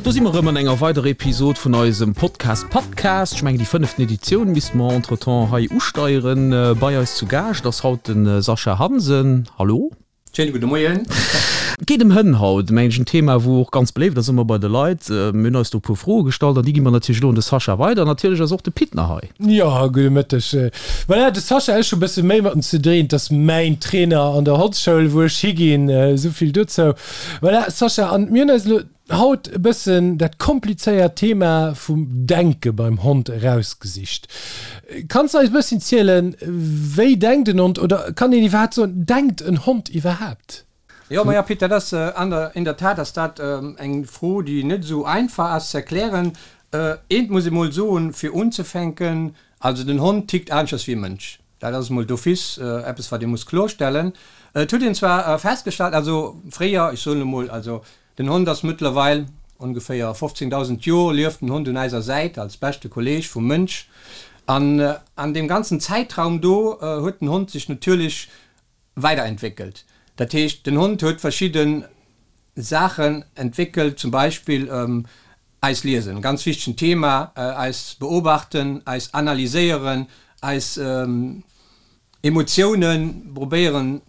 Do si mer erëm an enger weiderer Episod vun eisem Podcast Pattcast. Ech mengen déi fënneften Editioun misste mer entretemps hei usteieren. Bei eis zu Gaascht ass haut de Sascha Hansen. Hallo. Schéine gudde Moien. Et geet ëm Hënn haut, mengen ech, en Thema wou och ganz beléift ass ëmmer bei de Leit. Mir hunn eis do e puer Froe gestallt an déi gi mer natierlech elo un de Sascha weider. Natierlech ass och de Pit nach hei. Jo, gudde Mëtteg. Voilà, de Sascha, ech hu bësse méi mat em ze dréen, 't ass mäin Trainer an der Hondsschoul wou ech higinn, esou vill dozou. Voilà, Sascha, an mir hunn eis elo haut e bëssen dat komplizéiert Thema vum Denke beim Hond erausgesicht. Kanns de eis e bësschen zielen, wéi denkt en Hond oder kann een iwwerhaapt soen, denkt en Hond iwwerhaapt? Jo, maja Pit, dat ass an der, in der Tat ass dat eng Fro, déi net esou einfach ass ze erklären. Eent muss ee mol soen, fir unzefänken, also den Hond tickt aneschters wéi e Mënsch. Dat ass emol d'office eppes, wat ee muss klorstellen. Et huet een zwar festgestallt, also fréier, ech soen emol, also den Hond ass mëttlerweil ongeféier 15.000 Jor lieft den Hond un eiser Säit als beschte Kolleg vum Mënsch. An an deem ganzen Zäitraum do huet den Hond sech natierlech weiderentwéckelt. Dat heescht, den Hond huet verschidde Saachen entwéckelt, zum Beispill eis liesen, ganz wichtegen Thema, eis beobachten, eis analyséieren, eis Emotiounen probéieren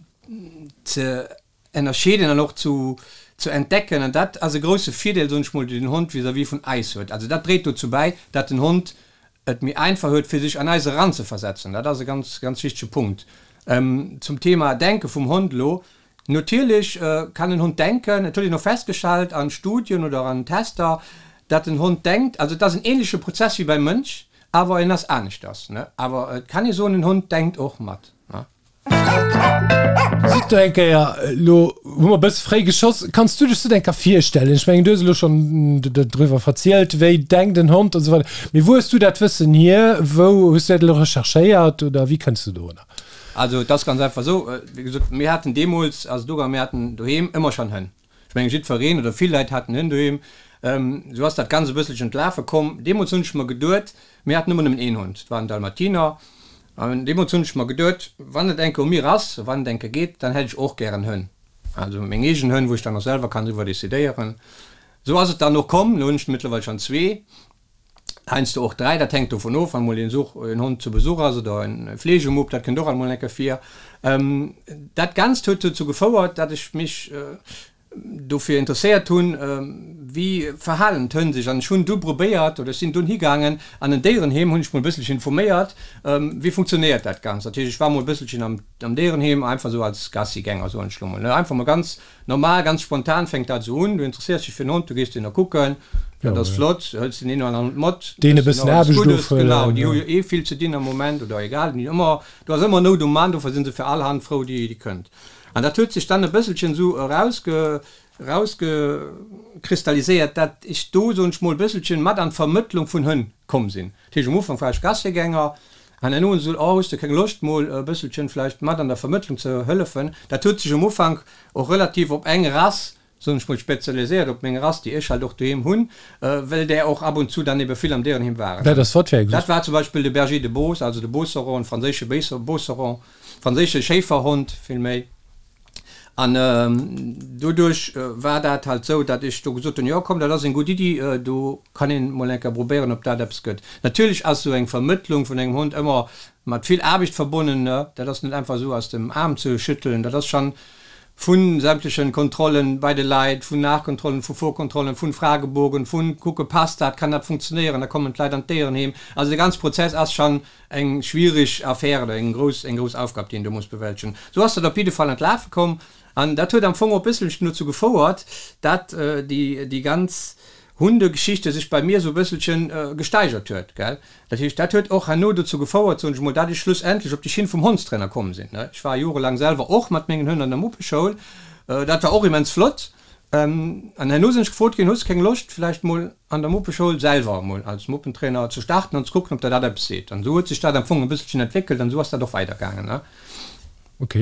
ze ennerscheeden an och zu ze entdecken. An dat ass e grousse Virdeel, soen ech mol, deen den Hond vis-à-vis vun eis huet. Also dat dréit dozou bäi, dat den Hond et méi einfach huet, fir sech an eis eranzeversetzen. Dat ass e ganz, ganz wichtege Punkt. Zum Thema Denke vum Hond elo, Natierlech kann en Hond denken. Et huet een och festgestallt an Studien oder an Tester, datt en Hond denkt. Also et ass en ähnleche Prozess wéi beim Mënsch, awer en ass aneschters. Awer et kann ee soen, en Hond denkt och mat. Sidd do eng Kéier, elo hu mer e bësse fréi geschoss, kanns du dech dat eng Kéier virstellen? Ech mengen, du hues elo schonn driwwer verzielt, wéi denkt en Hond an esou weider. Mee wou hues du dat Wëssen hier? Wou hues du dat elo recherchéiert oder wéi kënns du dorunner? Also et ass ganz einfach esou, wéi gesot, mir haten deemools, ass et ugaangen, mir haten doheem ëmmer schonn Hënn. Ech mengen, jiddwereen oder vill Leit haten Hënn doheem. Esou ass dat Ganzt e bësselchen d'Lafe komm. Deemools hunn ech mer geduet, mir haten ëmmer nëmmen een Hond, dat war en Dalmatiner, an deemools hunn ech mer geduet, wann et eng Kéier u mir ass, wann et eng Kéier geet, dann hätt ech och gären Hënn. Also meng eegen Hënn, wou ech dann och selwer kann driwwer decidéieren. Esou ass et dann och komm. Elo hunn ech mëttlerweil schonn zwee. Heiansdo och 3, dat hänkt dovun of, wann mol een Such, een Hond zu Besuch ass oder en Fleegemupp, dat kënnt och alt mol eng Kéier vir. Dat Ganzt huet dozou gefouert, datt ech mech dofir interesséiert hunn, wéi verhalen d'Hënn sech. An ech hunn du probéiert, oder ech sinn dunn higaangen an en Déierenheem, hunn ech mol e bësselchen informéiert, wéi funktionéiert dat Ganzt. Dat heescht, ech war mol e bësselchen am Déierenheem, einfach esou als Gassigänger, soen ech lo mol, ne, einfach mol ganz Normal, ganz spontan fänkt dat esou un, du interesséiers dech fir en Hond, du gees deen da kucken, dat ass flott, hëls den een oder aneren Hond mat, Deen e bëssen Aarbecht ofhuelen. Genau, déi hu jo eh vill ze dinn am Moment oder egal, déi hunn ëmmer, do ass ëmmer Nout um Mann, dofir si se fir all Hand frou, déi kënnt. An dat huet sech dann e bësselchen esou erausge, erausgekristalliséiert, dat ech do, soen ech mol, e bësselchen mat an d'Vermëttlung vun Hënn komm sinn. Dat heescht, um Ufank war ech Gassigänger, An herno hunn se gesot, oh, hues de keng Loscht mol e bësselchen vläicht mat an der Vermëttlung ze hëllefen? Dat huet sech um Ufank och relativ op eng Rass, soen ech mol, spezialiséiert, op meng Rass, déi ech halt och doheem hunn, well där och ab und zu dann ebe vill am Déierenheem waren. Dat ass wat fir eng? Dat war zum Beispill de Berger de Beauce, also de Beauceron, franséische Beauceron, franséische Schéiferhond villméi. An doduerch war dat halt esou, datt ech do gesot hunn, jo komm, dat ass eng gutt Iddi, do kann een mol eng Kéier probéieren, ob dat eppes gëtt. Natierlech ass esou eng Vermëttlung vun engem Hond ëmmer mat vill Aarbecht verbonnen, ne, dat ass net einfach esou aus dem Aarm ze schüttelen, dat ass schonn vu sämtlechen Kontrollen bei de Leit, vun Nachkontrollen, vu Vorkontrollen, vun Fragebogen, vun kucke passt dat, kann dat funktionéieren, da kommen d'Leit an d'Déierenheem. Also de ganze Prozess ass schonn Eng schwierig Affär oder eng grouss, eng grouss Aufgab, déi een do muss bewältegen. Sou ass dat op jidde Fall an d'Lafe komm an dat huet am Fong och e bësselchen dozou gefouert, dat déi, déi ganz Hundegeschichte sech bei mir esou e bësselchen gesteigert huet, gell. Dat heescht, dat huet och herno dozou gefouert, soen ech emol, dat ech schlussendlech op déi Schinn vum Hondstrainer komm sinn. Ech war jorelaang selwer och mat mengen Hënn an der Muppeschoul. Dat war och immens flott. An herno sinn ech gefrot ginn, Hues de keng Loscht vläicht mol an der Muppeschoul selwer emol als Muppentrainer ze starten an ze kucken, ob der dat eppes seet? An esou huet sech dat am Fong e bësselchen entwéckelt an esou ass dat och weidergaangen. Ok.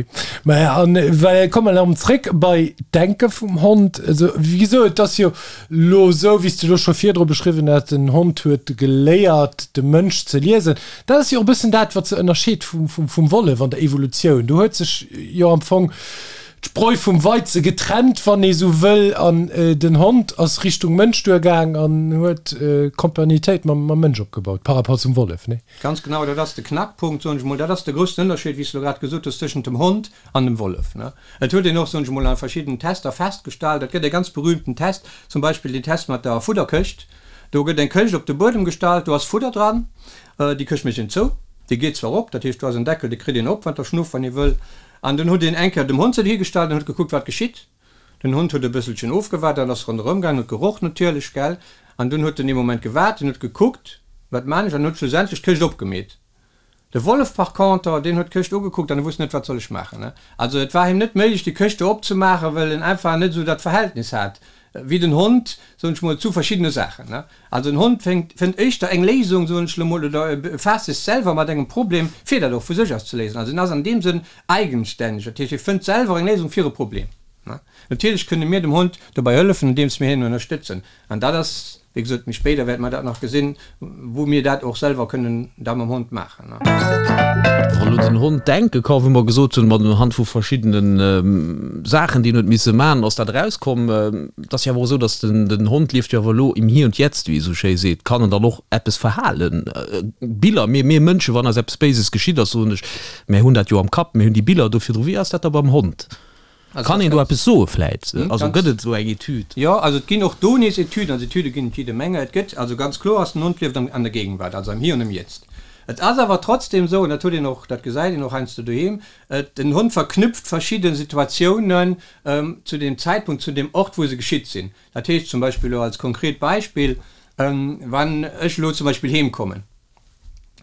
Maja, an well komme mer erëm zréck bei d'Denke vum Hond. Also wéi gesot, et ass jo lo esou, wéi s de lo scho virdru beschriwwen hues, den Hond huet geléiert, de Mënsch ze liesen. Dat ass jo och e bëssen dat, wat se ënnerscheet vum Wollef an der Evolutioun. Do huet sech jo am Fong. d'Spreu vum Weize getrennt, wann ee sou wëll, an den Hond ass Richtung Mënsch duergaang an huet Kompagnitéit mam Mënsch opgebaut, par rapport zum Wollef, nee? Ganz genau, dat ass de Knackpunkt, soen ech mol. Dat ass de groussen Ënnerscheed, wéi s de elo grad gesot hues, tëschent dem Hond an dem Wollef. Et huet een och, soen ech mol, a verschiddenen Tester festgestallt, et gëtt e ganz berühmten Test, zum Beispill den Test mat der Fudderkëscht. Do gëtt eng Këscht op de Buedem gestallt, do ass Fudder dran, déi Këscht mécht een zou, déi geet zwar op, dat heescht do ass en Deckel, dee kritt een op, wann der schnuff, wann ee wëll. An dunn huet een eng Kéier dem Hond se higestallt an huet gekuckt, wat geschitt. Den Hond huet e bësselchen ofgewaart an ass ronderëm gaangen, huet geroch natierlech, gell. An dunn huet en ee Moment gewaart, en huet gekuckt, wat maan ech, an huet schlussendlech d'Këscht opgemeet. De Wollef par conter, deen huet d'Këscht ugekuckt an e wusst net, wat soll ech maachen, ne. Also et war him net méiglech, déi Këscht do opzemaachen, well en einfach net esou dat Verhältnis hat wéi den Hond, soen ech mol, zu verschiddene Saachen, ne. Also en Hond féngt, fënnt éischter eng Léisung, soen ech lo mol, oder e befaasst sech selwer mat engem Problem, fir dat och vu sech aus ze léisen. Also en ass an deem Sënn eigenstänneg, dat heescht, e fënnt selwer eng Léisung fir e Problem. Natierlech kënne mir dem Hond dobäi hëllefen, andeems mir hien ënnerstëtzen. An dat ass, wéi gesot, méi spéider wäerte mer dat nach gesinn, wou mir dat och selwer kënnen da mam Hond maachen. Wann elo den Hond denke ka, wou mer gesot hunn, mat unhand vu verschiddene Saachen, déi en huet misse maachen, ass dat erauskomm. Et ass jo awer och esou, datt den Hond lieft jo awer elo im Hier und Jetzt, wéi ee sou schéi seet. Kann en dann och eppes verhalen? Biller, mir, mir Mënschen, wann eis eppes Béises geschitt ass, soen ech, mär hunn dat jo am Kapp, mir hunn déi Biller do virdru. Wéi ass dat da beim Hond? Kann een do eppes soe vläit? Also gëtt et esou eng Etüd? Jo, also et ginn och do nees Etüden, also Etüde ginn et jidde Menge. Et gëtt also ganz kloer ass, den Hond lieft an der Gegenwart, also am Hier und im Jetzt. Et ass awer trotzdem esou, an dat huet een och, dat gesäit een och heiansdo doheem, et, den Hond verknüpft verschidde Situatiounen zu deem Zäitpunkt, zu deem Ort, wou se geschitt sinn. Dat heescht zum Beispill elo als konkret Beispill, wann ech elo zum Beispill heemkommen,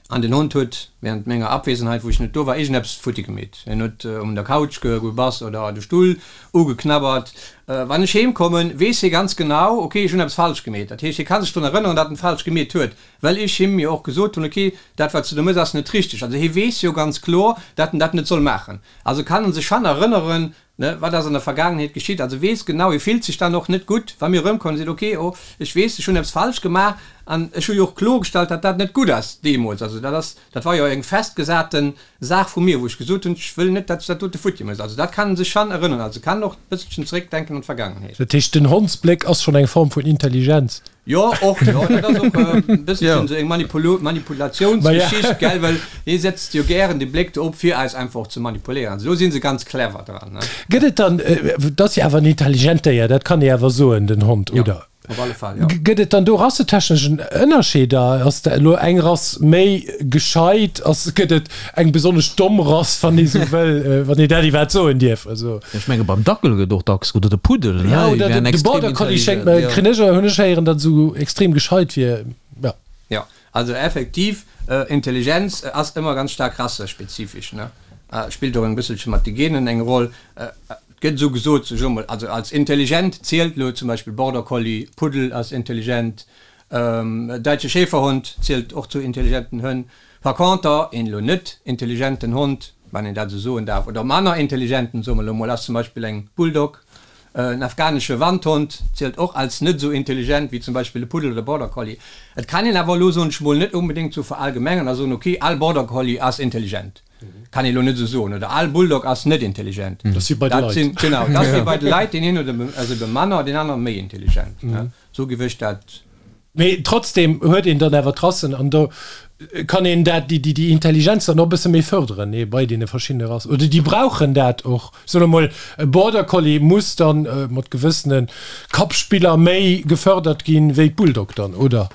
An den Hond huet während menger Abwesenheit, wou ech net do war, iergendeppes futti gemeet. En huet un der Couch gebass oder de Stull ugeknabbert. Wann ech heem kommen, weess hie ganz genau, ok, ech hunn eppes falsch gemeet. Dat heescht, hie ka sech drun erënneren, datt en falsch gemeet huet, well ech him jo och gesot hunn, ok, dat wat s du do méchs, ass net richteg. Also hie weess jo ganz kloer, datt en dat net soll maachen. Also kann en sech schann erënneren, Ne, wat ass an der Vergaangenheet geschitt? Also weess genau, e fillt sech dann och net gutt, wa mir erëmkommen a seet, ok, oh, ech weess, ech hunn eppes falsch gemaach an ech hu jo och kloergestallt, datt dat net gutt ass deemools. Also dat ass, dat war jo eng festgesate Saach vu mir, wou ech gesot hunn, ech wëll net, datt s du dat dote futti méchs. Also dat kann e sech schonn erënneren, also kann och e bësselchen zeréckdenken an d'Vergaangenheet. Dat heescht, den Hondsbléck ass schonn eng Form vun Intelligenz? Jo, och, jo, dat ass och e bësselchen esou eng Manipulatiounsgeschicht, gell, well hie setzt jo gären de Bléck do op, fir eis einfach och ze manipuléieren. Also do si se ganz clever dran, ne. Gëtt et dann, et ass jo awer en intelligent Déier, dat kann ee awer soen, den Hond, oder? Jo, op alle Fall, jo. Gëtt et dann do rassetechnesch Ënnerscheeder? Ass da elo eng Rass méi gescheit? Ass, gëtt et eng besonnesch domm Rass, wann ee sou wëll, wann ee dat iwwerhaapt soen dierf? Also. Ech menge beim Dackel gëtt och dacks, oder de Puddel, ne? Ja, oder de Border Collie schéngt mer, kréien ech, hunn ech héieren, datt esou extrem gescheit wier. Ja. Jo, also effektiv, Intelligenz ass ëmmer ganz staark rassespezifesch, ne? Spillt och eng bësselche mat de Genen eng Roll. Et gëtt esou gesot, sech emol, also als intelligent zielt elo zum Beispill Border Collie, Puddel ass intelligent, Däitsche Schäferhond zielt och zu intelligenten Hënn. Par conter, een elo net intelligenten Hond, wann een dat esou soen darf, oder manner intelligenten, soe mer elo mol, ass zum Beispill eng Bulldog. En afghanesche Wandhond zielt och als net esou intelligent wéi zum Beispill e Puddel oder Border Collie. Et kann een awer elo, soen ech mol, net onbedéngt sou verallgemengern a soen, ok, all Border Collie ass intelligent. Kann ee elo net esou soen. Oder all Bulldog ass net intelligent. Dat ass wéi bei de Leit. Genau, dat ass wéi bei de Leit, deen een huet ass ebe manner, deen anere méi intelligent. Sou géif ech dat. Mee trotzdem huet een dann awer d'Rassen an do kann een dat, déi, déi Intelligenz dann och e bësse méi fërderen, nee, bei deene verschiddene Rassen. Oder déi brauchen dat och. Soen emol, e Border Collie muss dann mat gewëssene Kappspiller méi gefërdert ginn, wéi d'Bulldog dann, oder?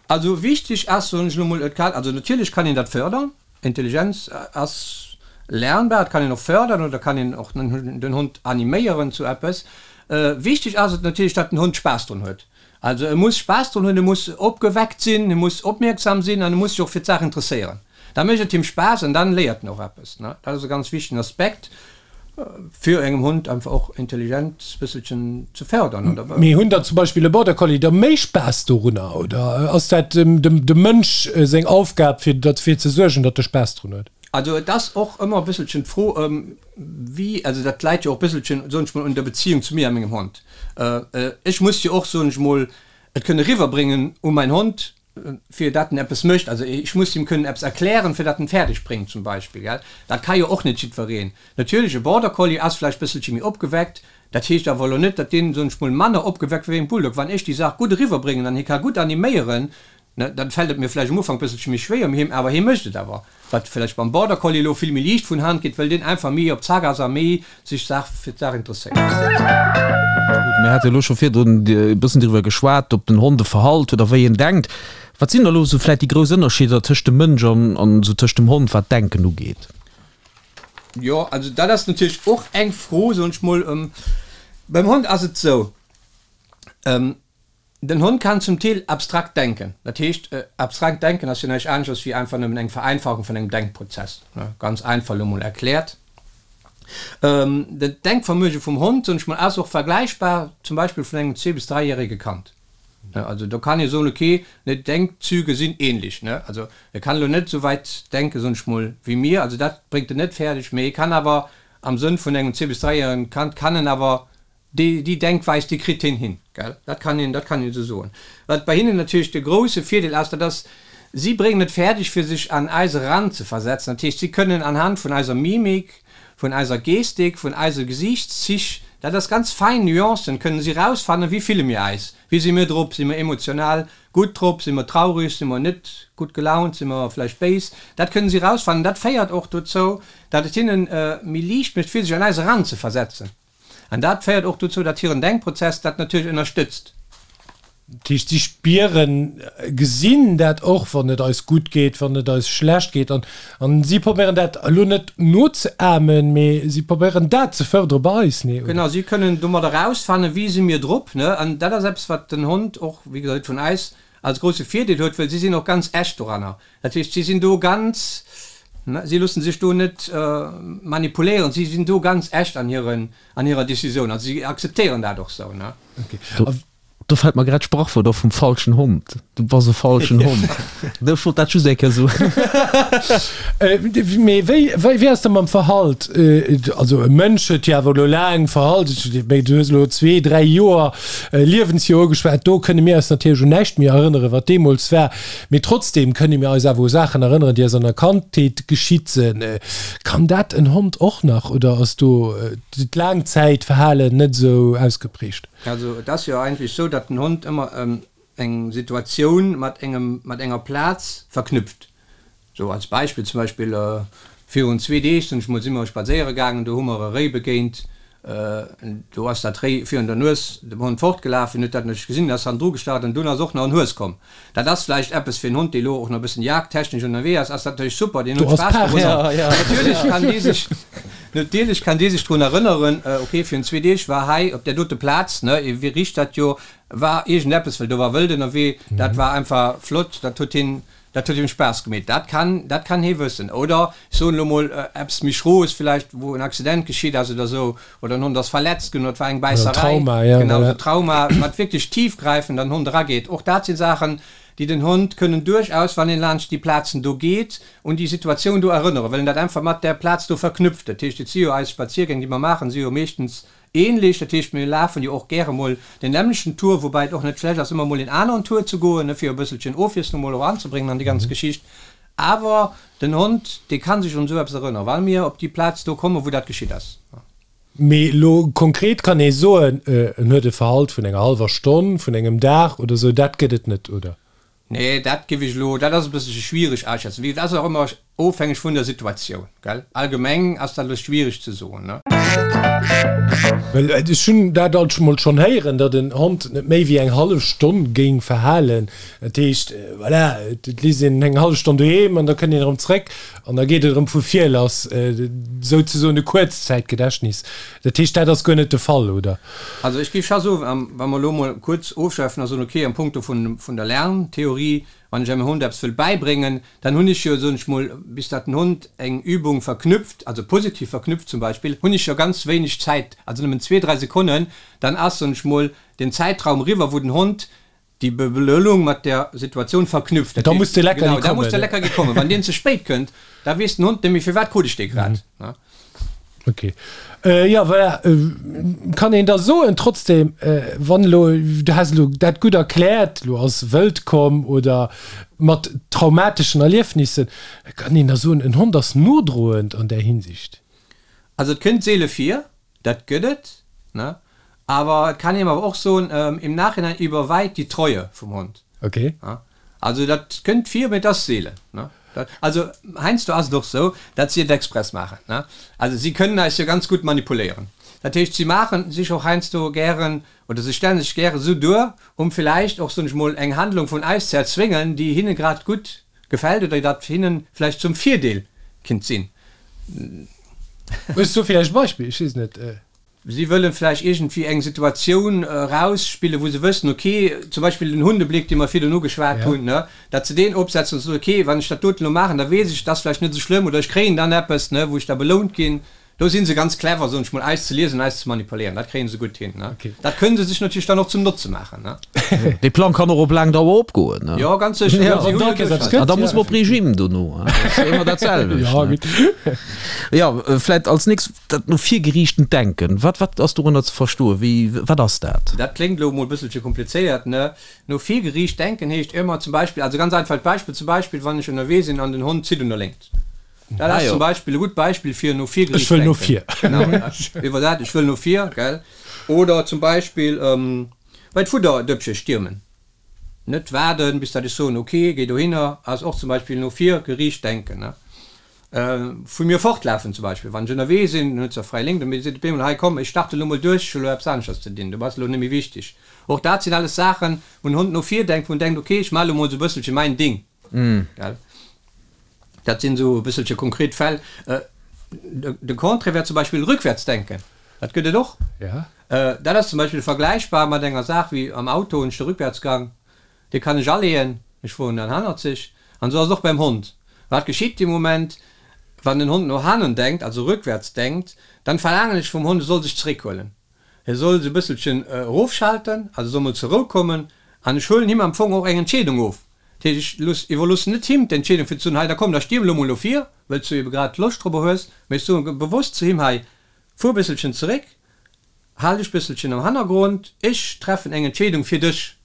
Also wichteg ass, soen ech elo mol, et kann, also natierlech kann een dat fërdern. Intelligenz ass lernbar, et kann een och fërdern oder kann een och den Hond animéieren zu eppes. Wichteg ass et natierlech, datt den Hond Spaass drun huet. Also e muss Spaass drun hunn, e muss opgeweckt sinn, e muss opmierksam sinn an e muss sech och fir d'Saach interesséieren. Da mécht et him Spaass an dann léiert en och eppes. Dat ass e ganz wichtegen Aspekt fir engem Hond einfach och Intelligenz bësselchen ze fördern, oder? Mee hunn der zum Beispill e Border Collie da méi Spaass dorunner oder ass dat dem Mënsch seng Aufgab fir derfir ze suergen, datt e Spaass drun huet? Also et ass och ëmmer e bësselchen d'Fro wéi, also dat läit jo och e bësselchen, soen ech mol, un der Beziehung zu mir a mengem Hond. Ech muss jo och, soen ech mol, et kënne riwwerbréngen u mäin Hond. fir dat en eppes mécht. Also ech muss him kënnen eppes erklären, fir dat en fäerdeg bréngt zum Beispill, gell. Dat ka jo och net jiddwereen. Natierlech, e Border Collie ass vläicht bësselche méi opgeweckt, dat heescht awer elo net, datt deen, soen ech mol, manner opgeweckt wéi en Bulldog. Wann ech déi Saach gutt eriwwerbréngen an hie ka gutt animéieren, Ne, dann fällt et mir vläicht am Ufank bësselche méi schwéier, mee him, awer hie mécht et awer. Wat vläicht beim Border Collie elo vill méi liicht vun Hand geet, well deen einfach méi op Zack ass a méi sech d'Saach fir d'Saach interesséiert. Gutt, mir hate elo scho virdrun e bëssen driwwer geschwat, ob den Hond e Verhalt huet a wéi en denkt. Wat sinn da elo esou vläicht déi grouss Ënnerscheeder tëscht dem Mënsch an an esou tëscht dem Hond, wat d'Denken ugeet? Jo, also dat ass natierlech och eng Fro, soen ech mol. Beim Hond ass et esou, Den Hond kann zum Deel abstrakt denken. Dat heescht, abstrakt denken ass jo näischt aneschters wéi einfach nëmmen eng Vereinfachung vun engem Denkprozess, ganz einfach elo mol erkläert. Den Denkvermöge vum Hond, soen ech mol, ass och vergläichbar zum Beispill vun engem zwee bis dräijärege Kand. Also do kann ee soen, okay, d'Denkzüge sinn ähnlech. Also e kann elo net esou wäit denken, soen ech mol, wéi mir, also dat bréngt en net fäerdeg, mee e kann awer am Sënn vun engem zwee bis dräijäregen Kand kann en awer Déi, déi Denkweis, déi kritt hien hin, gell? Dat kann een, dat kann een esou soen. Wat bei hinnen natierlech de grouse Virdeel ass, dat ass, si bréngen et fäerdeg, fir sech an eis eranzeversetzen. Dat heescht, si kënnen anhand vun eiser Mimik, vun eiser Gestik, vun eise Gesiichtszich, dat ass ganz fein Nuancen, kënnen si erausfannen, wéi fille mir eis, wéi si mir drop, si mir emotional gutt drop, si mer traureg, si mer net gutt gelaunt, si mer vläicht béis. Dat kënnen si erausfannen. Dat féiert och dozou, datt et hinnen méi liicht mécht, fir sech an eis eranzeversetzen. An dat féiert och dozou, datt hiren Denkprozess dat natierlech ënnerstëtzt. Dat heescht, si spieren, gesinn dat och, wann et eis gutt geet, wann et eis schlecht geet. An, an si probéieren dat elo net nozeahmen, mee si probéieren dat ze fërdere bei eis, nee, oder? Genau, si kënnen domat erausfannen, wéi si mir drop, ne? An dat ass eppes, wat den Hond och, wéi gesot, vun eis als grousse Virdeel huet, well si sinn och ganz echt doranner. Dat heescht, si sinn do ganz, si loosse sech do net manipuléieren, si sinn do ganz echt an hiren, an hirer Decisioun. Also si akzeptéieren dat och sou, ne? Do fält mer grad d'Sprachwuert op vum falschen Hond, Du bass e falschen Hond. Ech wollt dat just eng Kéier soen. Mee wéi, wéi ass dat mam Verhalt? Also e Mënsch huet jo awer elo laang Verhalt, du hues elo zwee, dräi Joer Liewensjoer ugeschwat, do kënne mir eis natierlech un näischt méi erënneren, wat deemools war. Mee trotzdem kënne mir eis awer u Saachen erënneren, déi eis an der Kandheet geschitt sinn. Kann dat en Hond och nach oder ass do d'Laangzäitverhalen net esou ausgeprägt? Also et ass jo eigentlech esou, datt den Hond ëmmer eng Situatioun mat engem, mat enger Plaz verknüpft. Sou als Beispill, zum Beispill virun zwee Deeg sinn ech mol, si mer spadséiere gaangen, do hu mer e Réi begéint, do ass dat Réi virun der Nues dem Hond fortgelaf, hien huet dat net gesinn, ass hannendru gestart an dunn ass och nach en Hues komm. Dat ass vläicht eppes fir en Hond, dee lo och nach e bëssen jagdtechnesch ënnerwee ass, ass dat natierlech super, deen huet Spaass dorunner. Natierlech kann dee sech, natierlech kann dee sech drun erënneren, ok, virun zwee Deeg war hei op där dote Plaz, ne, e richt dat jo, war iergendeppes, well do war Wëld ënnerwee, dat war einfach flott, dat huet hien Dat huet him Spaass gemeet, dat kann, dat kann hee wëssen. Oder, ech soen elo mol eppes méi Schroes vläicht, wou en Accident geschitt ass oder esou, oder en Hond ass verletzt ginn oder et war eng Bäisserei. Trauma, ja, Genau, esou Trauma, wat wierklech tiefgräifend an den Hond erageet. Och dat si Saachen, déi den Hond kënnen duerchaus, wann een laanscht déi Plazen do geet, un déi Situatioun do erënneren, well en dat einfach mat där Plaz do verknüpft. Dat heescht, et si jo eis Spaziergäng, déi mer maachen, si jo meeschtens Ähnlech, dat heescht mir lafen jo och gäre mol den nämmlechten Tour, woubäi et och net schlecht ass ëmmer mol een aneren Tour ze goen, ne, fir e bësselchen Ofwiesslung mol och anzebréngen an déi ganz Geschicht. Awer den Hond, dee ka sech un esou eppes erënneren, well mir op déi Plaz do kommen, wou dat geschitt ass. Mee elo konkret kann ee soen, en huet e Verhalt vun enger hallwer Stonn, vun engem Dag oder esou, dat gëtt et net, oder? Nee, dat giff ech elo, dat ass e bësselche schwiereg aschätzen. Wéi gesot, ass och ëmmer ofhängeg vun der Situatioun, gell. Allgemeng ass dat elo schwiereg ze soen, ne. Well ech hunn dat alt mol schonn héieren, datt en Hond net méi wéi eng hallef Stonn géing verhalen. Dat heescht, voilà, et léisst een en eng hallef Stonn doheem an da kënnt een erëm zréck an da geet et erëm vu vir lass, souzesoen e Kuerzzäitgedächtnis. Dat heescht, dat ass guer net de Fall, oder? Also ech géif scho soen, wa mer elo emol kuerz ofschwäifen a soen, okay, am Punkto vun vun der Lerntheorie, wann ech engem Hond eppes wëll bäibréngen, dann hunn ech jo, soen ech mol, bis datt den Hond eng Übung verknüpft, also positiv verknüpft zum Beispill, hunn ech jo ganz wéineg Zäit, also nëmmen zwee, dräi Sekonnen, dann ass, soen ech mol, den Zäitraum eriwwer, wou den Hond déi Belounung mat der Situatioun verknüpft. Da muss de Leckerli kommen. Genau, da muss de Leckerli kommen. Wann deen ze spéit kënnt, da weess den Hond net méi, firwat krut ech dee grad. Ok. Jo, voilà. Kann een da soen trotzdem, wann elo, du has elo dat gutt erkläert, elo ass Wëld komm oder mat traumateschen Erliefnissen, kann een da soen, en Hond ass nodroend an där Hinsicht? Also et kënnt seele vir, dat gëtt et, ne? Awer et kann een awer och soen, im Nachhinein überweigt die Treue vum Hond. Ok. Also dat kënnt vir, mee et ass seelen. Also heiansdo ass et och sou, datt si et express maachen. Also si kënnen eis jo ganz gutt manipuléieren. Dat heescht, si maache sech och heiansdo gären oder se stelle sech gäre sou duer, um villäicht och, soen ech mol, eng Handlung vun eis ze erzwéngen, déi hinne grad gutt gefält oder dat hinnen vläicht zum Virdeel kinnt sinn. Hues du villäicht e Beispill? Ech weess net. Si wëllen vläicht iergendwéi eng Situatioun erausspillen, wou se wëssen, ok, zum Beispill den Hundebléck, dee mer virdrun ugeschwat hunn, ne, datt se deen opsetzen an soen, ok, wann ech dat doten elo maachen, da weess ech, et ass vläicht net esou schlëmm oder ech kréien dann eppes, ne, wou ech da belount ginn. Do si se ganz clever, soen ech mol, eis ze liesen an eis ze manipuléieren. Dat kréie se gutt hin, ne. Dat kënne se sech natierlech dann och zum Notze maachen, ne. Dee Plang kann och op laang Dauer opgoen, ne. Jo, ganz sécher. Jo, wann da eppes gëtt. An da muss mer op Regime dono, dat ass ëmmer dat selwecht, ne. Jo, vläicht als nächst dat no vir geriichtent Denken. Wat, wat ass dorënner ze verstoen? Wéi, wat ass dat? Dat kléngt elo emol e bësselche komplizéiert, ne? No vir geriicht denken heescht ëmmer zum Beispill, also ganz einfacht Beispill, zum Beispill wann ech ënnerwee sinn an den Hond zitt un der Léngt. Dat ass zum Beispill e gutt Beispill fir no vir geriicht denken. Ech wëll no vir. Genau, iwwer dat, ech wëll no vir, gell? Oder zum Beispill bei d'Fudderdëppche stiermen. Net waarden, bis datt ech soen, ok, géi dohinner, ass och zum Beispill no vir geriicht denken, ne? Vu mir fortlafen zum Beispill, wann ech ënnerwee sinn, dann huet se fräi Lénk, dann seet op eemol, hei komm, ech starte lo mol duerch, ech hu lo eppes aneschters ze dinn, du bass elo net méi wichteg. Och dat sinn alles Saachen, wou en Hond no vir denkt, wou en denkt, ok, ech maache lo mol sou e bësselche mäin Ding, gell. Dat sinn esou e bësselche konkret Fäll. De Contraire wär zum Beispill rückwärts denken, dat gëtt et och. Dat ass zum Beispill vergläichbar mat enger Saach wéi am Auto hunn ech de Rückwärtsgang, Dee kann ech aleeën, ech fueren dann hannerzeg. An esou ass et och beim Hond. Wat geschitt dee Moment, wann den Hond no hannen denkt, also rückwärts denkt, dann verlaangen ech vum Hond, e soll sech zeréckhuelen. E soll sou e bësselchen erofschalten, also soll mol zur Rou kommen. An ech huelen him am Fong och eng Entscheedung of. Dat heescht, ech looss, iwwerloossen net him d'Entscheedung fir ze soen, hei da komm, da stierm elo mol no vir, wëlls du ebe grad Loscht dorobber hues, mee ech soe bewosst zu him, hei, fuer e bësselchen zeréck, Hal dech bësselchen am Hannergrond, ech treffen eng Entscheedung fir dech.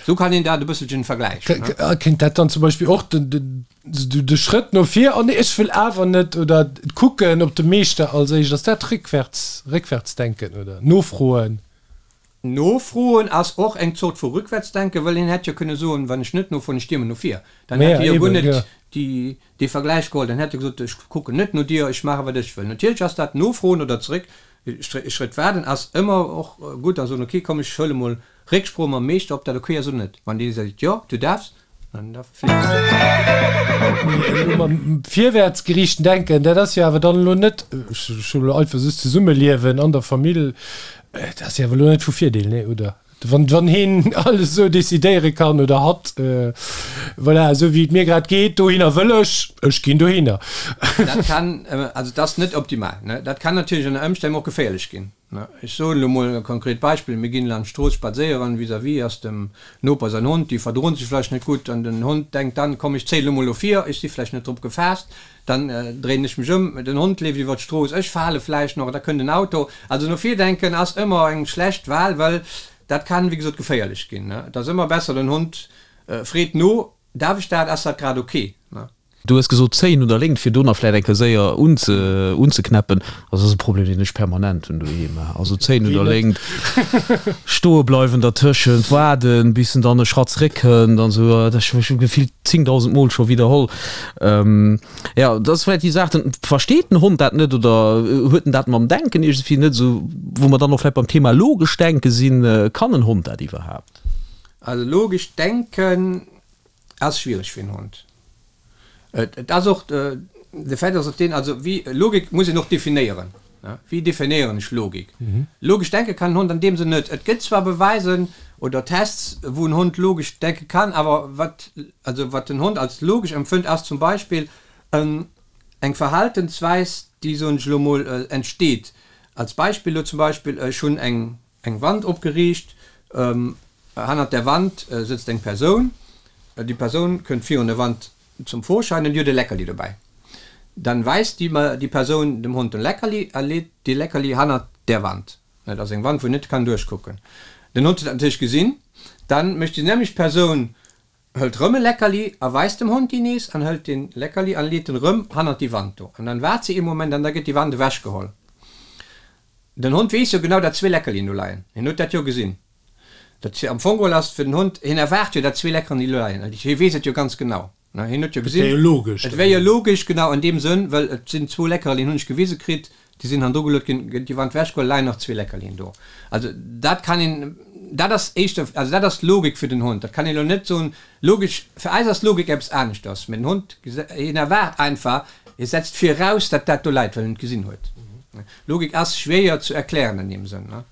Sou kann een dat e bësselchen vergläichen. Kéint dat dann zum Beispill och de Schrëtt no vir, oh nee, ech wëll awer net, oder d'Kucken op de Meeschter als éischt, ass dat rückwärts, Rückwärtsdenken oder nofroen? Nofroen ass och eng Zort vu Rückwärtsdenken, well een hätt jo kënne soen, wann ech net nofroen, ech stiermen no vir. Dann hätt hie jo guer net déi dee Vergläich geholl, dann hätt e gesot, ech kucken net no dir, ech maache wat ech wëll. Natierlech ass dat Nofroen oder zeréck e Schrëtt waarden ass ëmmer och gutt a soen, ok komm ech huele mol Récksprooch mam Meeschter, ob dat ok ass oder net. Wann dee seet, jo du däerfs, dann da flitt. Mee elo mam virwäertsgeriichten Denken, dat ass jo awer dann elo net, ech hu elo einfach soss Zesummeliewen an der Famill, dat ass jo awer elo net vu Virdeel, nee oder? Wann, wann heen alles esou decidéiere kann oder hatt, voilà, esou wéi et mir grad geet, dohinner wëll ech, ech ginn dohinner. Dat kann, also et ass net optimal, ne? Dat kann natierlech ënner Ëmstänn och geféierlech ginn, ne? Ech soen elo mol e konkret Beispill, Mir ginn laanscht d'Strooss spadséieren, vis-à-vis ass dem Noper säin Hond, déi verdroen sech vläicht net gutt an den Hond denkt dann, komm ech zéien elo mol no vir, ech si vläicht net drop gefaasst, dann dréinen ech mech ëm, den Hond leeft iwwer d'Strooss, ech fale vläicht nach, da kënnt en Auto. Also no vir denken ass ëmmer eng schlecht Wahl, well dat kann, wéi gesot, geféierlech ginn. Et ass ëmmer besser, den Hond freet no, Darf ech dat, ass dat grad ok? Du hues gesot zéien un der Léngt, fir do nach vläicht eng Kéier séier unzeknäppen. Also dat ass e Problem, deen ech permanent hunn doheem. Also zéien un der Léngt, stoe bleiwen dertëschent, waarden, bis en dann e Schratt zeréckkënnt an esou. Dat hu ech gefillt 10.000 Mol scho widderholl. Jo, dat ass vläicht déi Saach, den, versteet den Hond dat net oder huet en dat mam Denken iergendwéi net esou, wou mer dann och vläicht beim Thema logesch Denke sinn, kann en Hond dat iwwerhaapt? Also logesch Denken ass schwiereg fir en Hond. Et ass och, de Fait ass och deen, also wéi, Logik muss een och definéieren, wéi definéieren ech Logik? Logesch denke kann en Hond an deem Sënn net. Et gëtt zwar Beweisen oder Tests, wou en Hond logesch denke kann, awer wat, also wat den Hond als logesch empfënnt, ass zum Beispill eng Verhaltensweis, déi, soen ech elo mol, entsteet. Als Beispill elo zum Beispill, ech hunn eng eng Wand opgeriicht, hannert där Wand sëtzt eng Persoun, déi Persoun kënnt virun der Wand zum Vorschein an déi huet e Leckerli dobäi. Dann weist déi déi Persoun dem Hond den Leckerli a leet dee Leckerli hannert där Wand. Dat ass eng Wand, wou en net kann duerchkucken. Den Hond huet dat natierlech gesinn. Dann mécht déi nämmlecht Persoun, hëlt rëm e Leckerli a weist dem Hond déi nees an hëlt dee Leckerli an leet en rëm hannert déi Wand do. An dann waart se ee Moment an da gëtt déi Wand ewechgeholl. Den Hond weess jo genau, datt zwee Leckerlien do leien. Hien huet dat jo gesinn. Dat am Fong geholl ass fir den Hond, hien erwaart jo, datt zwee Leckerlien do leien. Hie weess et jo ganz genau. Ne, hien huet jo Et wär jo gesinn, logesch et wär jo logesch, genau an deem Sënn, well et sinn zwou Leckerlien, hunn ech gewise kritt, déi sinn hannendru geluet ginn, gëtt déi Wand wechgeholl, leien nach zwee Leckerlien do. Also dat kann een, dat ass éischter, also dat ass d'Logik fir den Hond. Dat kann een elo net soen, logesch, fir eis ass Logik eppes aneschters, mä den Hond, hien erwaart einfach, hie setzt viraus, datt dat do läit, well en et gesinn huet. Logik ass schwéier zu erklären an deem Sënn, ne.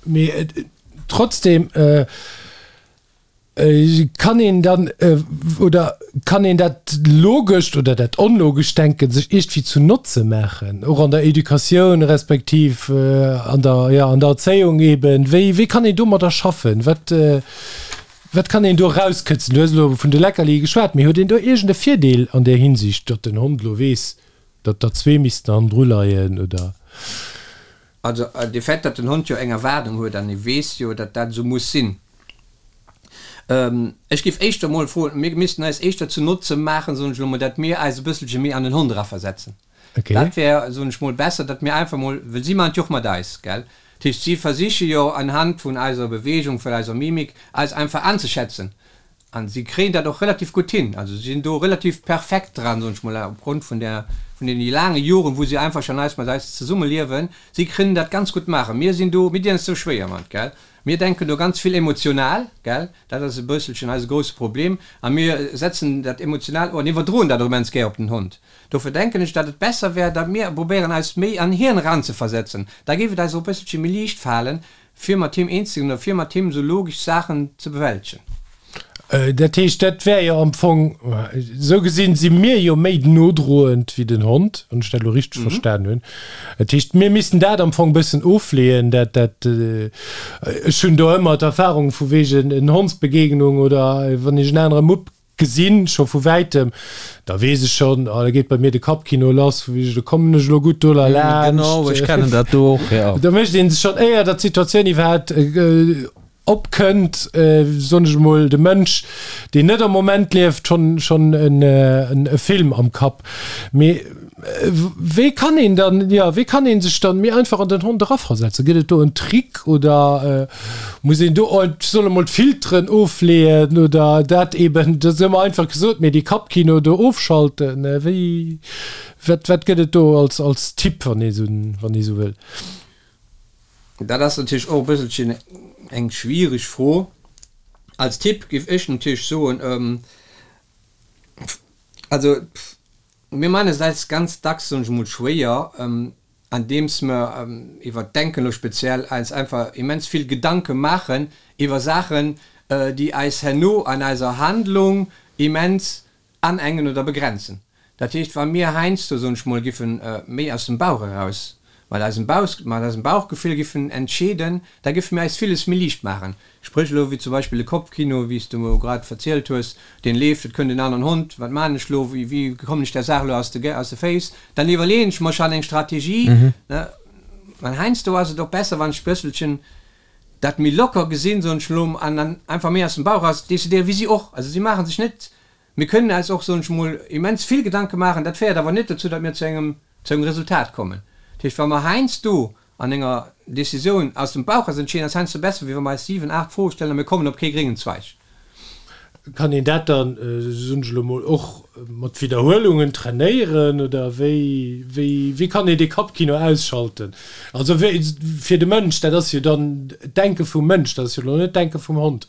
Mee trotzdem. Kann een dann, oder kann een dat logescht oder dat onlogescht Denken sech iergendwéi zu Notze maachen, och an der Educatioun respektiv an der, jo, an der Erzéiung eben? Wéi, wéi kann een domadder schaffen? Wat, wat kann een do erauskëtzen? Du hues elo vun de Leckerlie geschwat, mee huet een do iergend e Virdeel an där Hinsicht, datt den Hond elo weess, datt der zwee missten hannendru leien, oder? Also de Fait, datt den Hond jo eng Erwaardung huet an e weess jo, datt dat esou muss sinn. Ech géif éischter emol froen, mir missten eis éischter zu Notze maachen, soen ech elo mol, datt mir eis e bësselche méi an den Hond eraversetzen. Dat wär, soen ech mol, besser, datt mir einfach mol, well si maachen et jo och mat eis, gell? Dat heescht, si versiche jo anhand vun eiser Bewegung, vun eiser Mimik, eis einfach anzeschätzen. An si kréien dat och relativ gutt hin. Also si sinn do relativ perfekt dran, soen ech mol, opgrond vun der, vun deene laange Joren, wou si einfach schon eis mat eis zesummeliewen. Si kënnen dat ganz gutt maachen. Mir sinn do, mir dinn eis do schwéier mat, gell. Mir denken do ganz vill emotional, gell. Dat ass e bësselchen eise grousse Problem. A mir setzen dat emotional an iwwerdroen dat och immens gär op den Hond. Dofir denken ech, datt et besser wär, datt mir probéieren eis méi an hien eranzeversetzen. Da géif et eis och e bësselche méi liicht falen, Fir mat him eens ze ginn oder fir mat him esou logesch Saachen ze bewältegen. Dat heescht, dat wär jo am Fong, esou gesinn si mir jo méi nodroend wéi den Hond, wann ech dat elo richteg verstan hunn. Dat heescht, mir missten dat am Fong e bëssen ofleeën, dat, dat, ech hunn do ëmmer d'Erfahrung vu wegen en Hondsbegegnung oder wann ech en anere Mupp Gesinn, scho vu wäitem, da weess ech schonn, oh, da geet bei mir de Kappkino lass, vu wéi, do kommen ech elo gutt do laanscht. Genau, ech kennen dat do och, jo. Da mécht ee sech schonn, éier datt d'Situatioun iwwerhaapt opkënnt, soen ech emol, de Mënsch, deen net am Moment lieft, schonn, schonn en e Film am Kapp. Mee wéi kann een dann, jo, wéi kann ee sech dann méi einfach an den Hond eraversetzen? Gëtt et do en Trick oder? Muss een do, ech soll emol d'Filteren ofleeën oder dat eben, dat ass ëmmer einfach gesot, mee dee Kappkino do ofschalten, wéi, wat, wat gëtt et do als, als Tipp, wann ee sou, wann ee sou wëll? Dat ass natierlech och e bësselchen eng schwiereg Fro. Als Tipp géif ech natierlech soen, also mir maachen et eis ganz dacks, soen ech emol, schwéier, andeems mer iwwert d'Denken elo speziell eis einfach immens vill Gedanke maachen iwwer Saachen, déi eis herno an eiser Handlung immens anengen oder begrenzen. Dat heescht, wa mir heiansdo, soen ech mol, giffe méi aus dem Bauch eraus, mat eisem Bauch, mat eisem Bauchgefill giffen entscheeden, da giffe mir eis villes méi liicht maachen. Spréch elo wéi zum Beispill de Kopfkino, wéi s de elo grad verzielt hues, deen leeft, et kënnt en aneren Hond, wat maan ech lo, wéi wéi kommen ech där Saach elo aus de aus de Féiss, dann iwwerleeën ech mer schonn eng Strategie, ne. An heiansdo ass et och besser, wann ech bësselchen dat méi locker gesinn, soen ech elo, an dann einfach méi aus dem Bauch eraus decidéieren, wéi si och. Also si maache sech net, mir kënnen eis och, soen ech mol, immens vill Gedanke maachen, dat féiert awer net dozou, datt mir zu engem zu engem Resultat kommen. Dat heescht, wa mer heiansdo an enger Decisioun aus dem Bauch eraus entscheeden, ass heiansdo besser, wéi wa mer eis 7, 8 Froe stellen a mir kommen op kee gréngen Zweig. Kann een dat dann, soen ech elo mol, och mat Widderhuelungen trainéieren oder wéi, wéi, wéi kann een dee Kappkino ausschalten? Also wéi, fir de Mënsch, dat ass jo dann d'Denke vum Mënsch, dat ass jo elo net d'Denke vum Hond.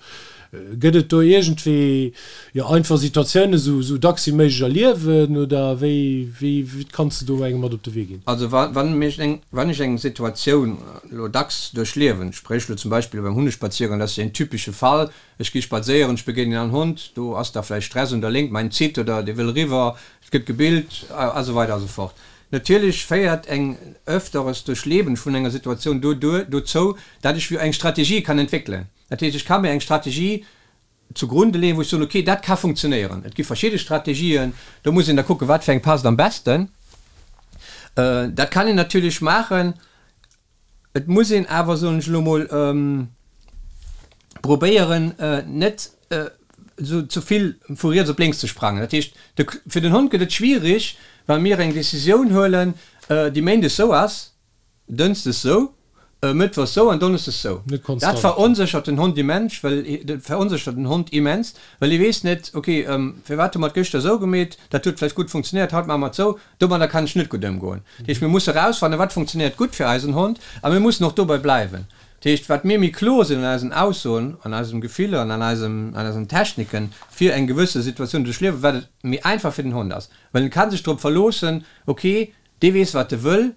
Gëtt et do iergendwéi, jo, einfach Situatiounen esou, esou dacks wéi méiglech erliewen oder wéi, wéi, wéi kanns de do engem mat op de Wee ginn? Also wa, wann mech eng, wann ech eng Situatioun elo dacks duerchliewen, spréch elo zum Beispill beim Hundespaziergang, dat ass jo een typesche Fall, ech gi spadséieren, ech begéinen en Hond, do ass da vläicht Stress un der Léngt, mäin zitt oder dee wëll eriwwer, et gëtt gebillt a sou weider a sou fort. Natierlech féiert eng öfteres Duerchleben vun enger Situatioun do, dozou, dat ech eng Strategie kann entwéckelen. Dat heescht, ech ka mir eng Strategie. zugrunde leeën, wou ech soen, okay, dat ka funktionéieren. Et gi verschidde Strategien, do muss een da kucken, wat fir eng passt am besten. Dat kann een natierlech maachen. Et muss een awer, soen ech elo mol, probéieren, net esou ze vill vu riets op lénks ze sprangen. Dat heescht, de, fir den Hond gëtt et schwierig, wa mir eng Decisioun huelen, déi méindes esou ass, dënschdes sou, mëttwochs sou an donneschdes sou. Net Dat konstant. veronséchert den Hond immens, well dat veronséchert den Hond immens, well e weess net, ok, firwat hu mer et gëschter esou gemeet, dat huet vläicht gutt funktionéiert, haut maache mer et sou, domadder kann ech net gutt ëmgoen. Dat heescht, mir musse erausfannen, wat funktionéiert gutt fir eisen Hond a mir mussen och dobäi bleiwen. Dat heescht, wat mir méi kloer sinn an eisen Aussoen, an eisem Gefiller an an eisem, an eisen Techniken, fir eng gewësse Situatioun ze duerchliewen, wat et méi einfach fir den Hond ass, well en ka sech drop verloossen, ok, dee weess, wat e wëll,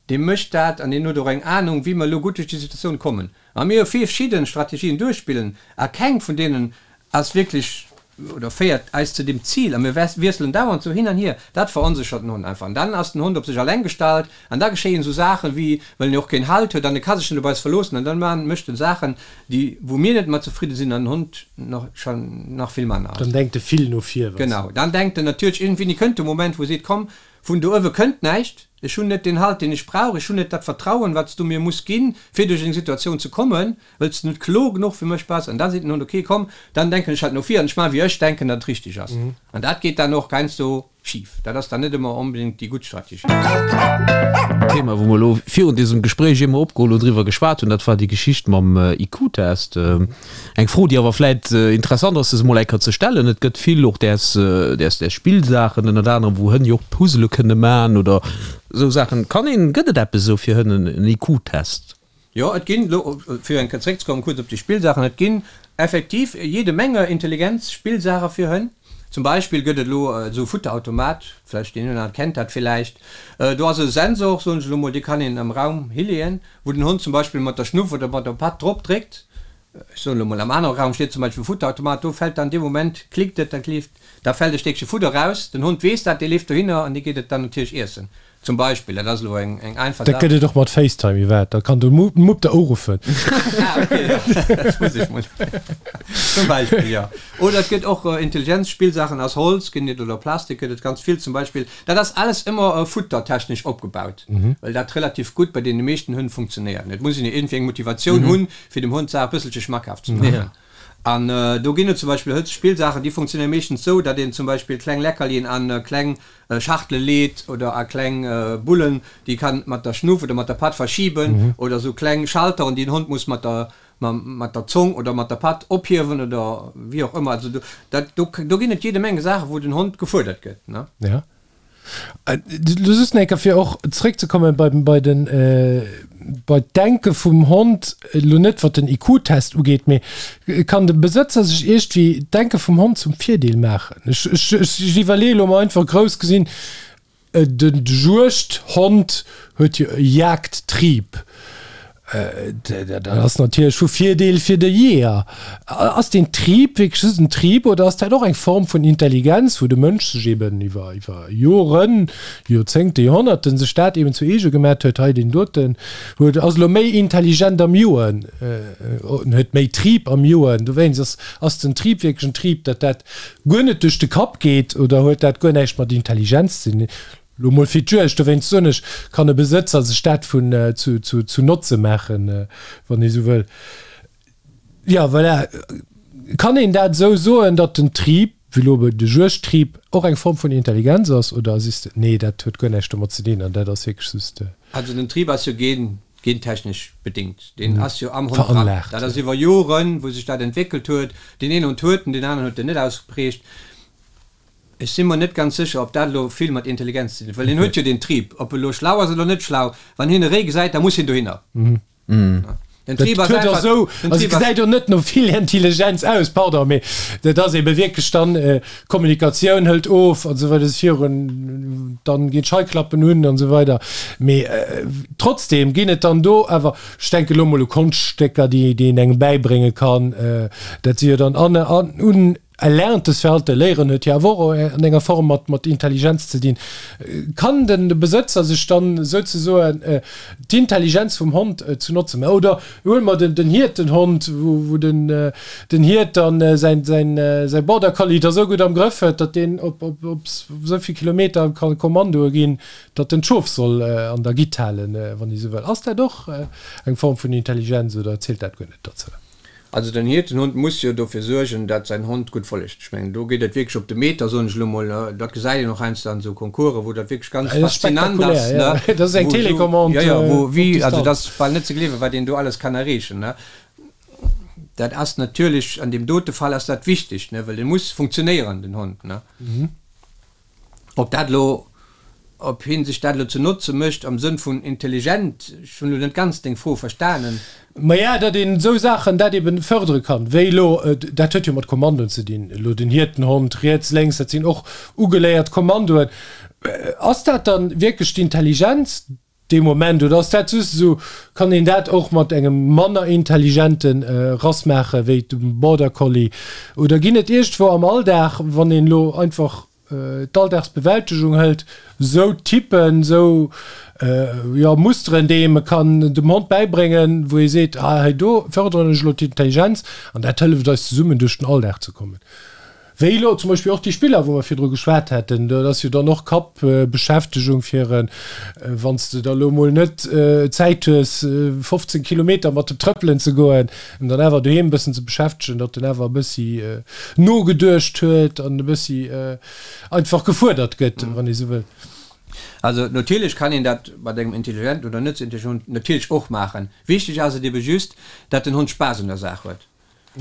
Dee mécht dat an deen huet och eng Anung, wéi mer elo gutt duerch déi Situatioun kommen. A mir hu verschidde Strategien duerchspillen a keng vun deenen ass wierklech oder féiert eis zu deem Zil a mir wiesselen dauernd sou hin an hier. Dat veronséchert den Hond einfach an dann ass den Hond op sech alleng gestallt an da geschéien esou Saachen, wéi well en jo och keen Halt huet an e ka sech net op eis verloossen an dann maan mécht en Saachen, déi wou mir net mat zefridde sinn an den Hond nach schon nach vill manner. Dann denkt e vill no vir. Genau, dann denkt en natierlech iergendwéini kënnt de Moment, wou e seet, komm, Vun do uewe kënnt näischt. Ech hunn net deen Halt, deen ech brauch. Ech hunn net dat Vertrauen, wat s du mir muss ginn, fir duerch eng Situatioun ze kommen, wëll s du net kloer genuch fir mech bass. An da seet den Hond, Ok, komm, dann denken ech halt no vir an ech maachen, wéi ech denken, datt et richteg ass. An dat geet dann och heiansdo schif. Dat ass dann net ëmmer onbedéngt déi gutt Strategie. Thema, wou mer elo virun dësem Gespréich eemol opgeholl hunn, driwwer geschwat hunn, dat war déi Geschicht mam IQ-Test. Eng Fro, déi awer vläit interessant ass, se emol eng Kéier ze stellen, Et gëtt vill och däers, däers, däers Spillsaachen, ënnert anerem, wou Hënn jo och Puzzele kënne man oder esou Saachen. Kann een, gëtt et eppes esou fir Hënn, en IQ-Test? Jo, et ginn, elo fir eng Kéier zeréckzekommen kuerz op déi Spillsaachen, et ginn effektiv jede Menge Intelligenz-Spillsaache fir Hënn. Zum Beispill gëtt et elo esou e Futterautomat, vläicht deen een oder anere kennt dat villäicht, do ass e Sensor, soen ech elo mol, dee kann een am Raum hileeën, wou den Hond zum Beispill mat der Schnuff oder mat der Patt drop dréckt, ech soen elo mol, am anere Raum steet zum Beispill e Futterautomat, do fält dann dee Moment, klickt et, da leeft, da fält e Stéckche Fudder raus, den Hond weess dat, dee leeft dohinner an dee geet et dann natierlech iessen, zum Beispill. Dat ass elo eng eng einfach Dat Saach. gëtt et och mat FaceTime, Yvette, da kann de Mupp der uruffen. Ah, okay, jo, dat muss ech mol, zum Beispill, jo. Oder et gëtt och Intelligenzspillsaachen aus Holz ginn et oder Plastik gëtt et ganz vill zum Beispill. Dat ass alles ëmmer futtertechnesch opgebaut, well dat relativ gutt bei deene meeschten Hënn funktionéiert. Et muss een jo iergendwéi eng Motivatioun hunn, fir dem Hond d'Saach e bësselche schmackhaft ze maachen. An do ginn et zum Beispill Hëtzspillsaachen, déi funktionéiere meeschtens esou, datt een zum Beispill kleng Leckerlien a kleng Schachtele leet oder a kleng Bullen, déi kann mat der Schnuff oder mat der Patt verschiben oder esou kleng Schalteren, déi den Hond muss mat der mat der Zong oder mat der Patt ophiewen oder wéi och ëmmer. Also do, dat, do, do ginn et jede Menge Saachen, wou den Hond gefuerdert gëtt, ne? Ja. Lo just nach eng Kéier, fir och zréckzekommen bei, bei den, bei d'Denke vum Hond, elo net wat den IQ-Test ugeet, mee kann de Besëtzer sech iergendwéi d'Denke vum Hond zum Virdeel maachen? Ech, ech, ech iwwerleeë lo mol einfach grouss gesinn, De Juegdhond huet jo e Jagdtrieb. Dat ass natierlech vu Virdeel fir de Jeeër. Ass deen Trieb wierklech just en Trieb oder ass dat och eng Form vun Intelligenz, wou de Mënsch sech eben iwwer Joren, Joerzéngte, Joerhonnerten sech dat eben zu eege gemat huet, hei deen doten huet ass elo méi intelligent am Joen, huet méi Trieb am Joen. Dowéinst ass ass den Trieb wierklech en Trieb, datt dat guer net duerch de Kapp geet oder huet dat guer näischt mat Intelligenz ze dinn? Lo mol fir d'Juegd, dowéinst soen ech, kann e Besëtzer sech dat vun zu zu zu Notze maachen, wann ee sou wëll. Jo, voilà. Kann een dat esou soen, datt den Trieb, wéi lo de Juegdtrieb, och eng Form vun Intelligenz ass oder sees de, nee, dat huet guer näischt domat ze dinn an dat ass wierklech just. Also den Trieb ass jo gen Gentechnesch bedingt. Deen ass jo am Hond dran. Veranlaagt. Dat ass iwwer Joren, wou sech dat entwéckelt huet. Deen een Hond huet en, deen aneren huet en net ausgeprägt. Ech si mer net ganz sécher, ob dat elo vill mat Intelligenz ze dinn huet, well hien huet jo deen Trib. Ob e lo schlau ass oder net schlau, wann hien e Réi gesäit, da muss hien dohinner. Den Trib ass Dat huet och einfach, esou, den also Trib ass. gesäit och net no vill Intelligenz aus, pardon, mee dat ass ebe wierklech dann, D'Kommunikatioun hëlt of an esou weider, virun, dann ginn d'Scheiklappen un an esou weider. Mee trotzdem ginn et dann do awer, ech denke lo mol u Konschtstécker, déi déi een engem bäibrénge kann, dat si jo dann an un. Erlerntes Verhalten, Léieren huet jo awer och an enger Form mat, mat Intelligenz ze dinn. Kann den de Besëtzer sech dann souzesoen d'Intelligenz vum Hond zu notze maachen? Oder huele mer den, den Hiertenhond, wou, wou den, den Hiert dann säin, säin, säi Border Collie da sou gutt am Grëff huet, datt deen op, op, op esou vill Kilometer ka Kommandoe ginn, datt en d'Schof soll an der Gitt halen, wann ee sou wëll. Ass dat och eng Form vun Intelligenz oder zielt dat guer net dozou? Also den Hiertenhund muss jo dofir suergen, dat säin Hond gutt follegt. Ech mengen, do geet et wierklech op de Meter, soen ech elo mol. Dat gesäit een och heiansdo an esou Concoursen, wou dat wierklech ganz faszinant ass, ne? Dat ass eng Télécommande op Distanz. Jo, jo, wou wéi, also dat ass bal net ze gleewen, wat een do alles kann erreechen, ne? Dat ass natierlech, an deem dote Fall ass dat wichteg, ne, well e muss funktionéieren, den Hond, ne? Ob dat elo, ob hien sech dat elo ze notze mécht am Sënn vun intelligent, ech hunn elo net ganz deng Fro verstanen. Maja, datt een esou Saachen, dat eben fërdere kann, wéi elo, dat huet jo mat Kommandoen ze dinn, elo den Hiertenhond, riets, lénks, dat sinn och ugeléiert Kommandoen. Ass dat dann wierklech d'Intelligenz? Dee Moment, oder ass dat just esou, kann een dat och mat engem manner intelligente Rass maache wéi dem Border Collie? Oder ginn et iergendwou am Alldag, wann een elo einfach d'Alldagsbewältegung hëlt, esou Typen, esou, jo, Musteren, déi ee kann dem Hond bäibréngen, wou ee seet, ah hei do fërderen ech elo d'Intelligenz an dat hëlleft eis zesummen duerch den Alldag ze kommen? Wéi elo zum Beispill och déi Spiller, wou mer virdru geschwat haten, dat ass jo dann och Kappbeschäftegung fir en, wann s de da elo mol net Zäit hues, 15 Kilometer mat dem Trëppelen ze goen, en dann awer doheem e bëssen ze beschäftegen, datt en awer e bëssi nogeduecht huet an e bëssi einfach gefuerdert gëtt, wann ee sou wëll. Also natierlech kann een dat mat engem intelligenten oder net sou intelligenten Hond natierlech och maachen. Wichteg ass et ebe just, datt den Hond Spaass un der Saach huet.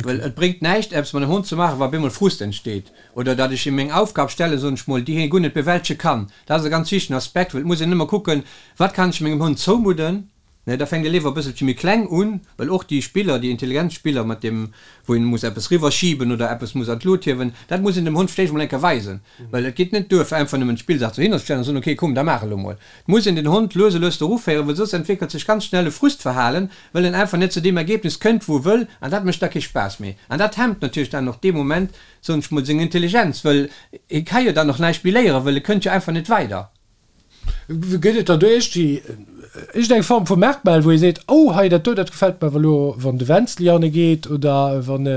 Well et bréngt näischt, eppes mat engem Hond ze maachen, wa op eemol Frust entsteet. Oder datt ech him eng Aufgab stellen, soen ech mol, déi hie guer net bewältege kann. Dat ass e ganz wichtegen Aspekt, well et muss een ëmmer kucken, Wat kann ech mengem Hond zoumudden? Ne, da fänkt ee léiwer e bësselche méi kleng un, well och déi Spiller, déi Intelligenzspiller, mat deem, wou een muss eppes riwwerschiben oder eppes muss an d'Lut hiewen, dat muss een dem Hond vläicht emol eng Kéier weisen. Well et geet net duer, fir einfach nëmmen d'Spillsaach dohinner ze stellen a soen, ok, komm, da maach elo mol. Et muss een den Hond lues a lues doru féieren, well soss entwéckelt sech ganz schnell e Frustverhalen, well en einfach net zu deem Ergebnis kënnt, wou e wëll, an dat mécht da kee Spaass méi. An dat hemmt natierlech dann och dee Moment, soen ech mol, seng Intelligenz, well hie ka jo dann och näischt méi léieren, well e kënnt jo einfach net weider. Gëtt et dann do iergendwéi iergendeng Form vu Merkmal, wou ee seet, oh hei dat do, dat gefält mer awer elo, wann de Wenzli hanne geet oder wann e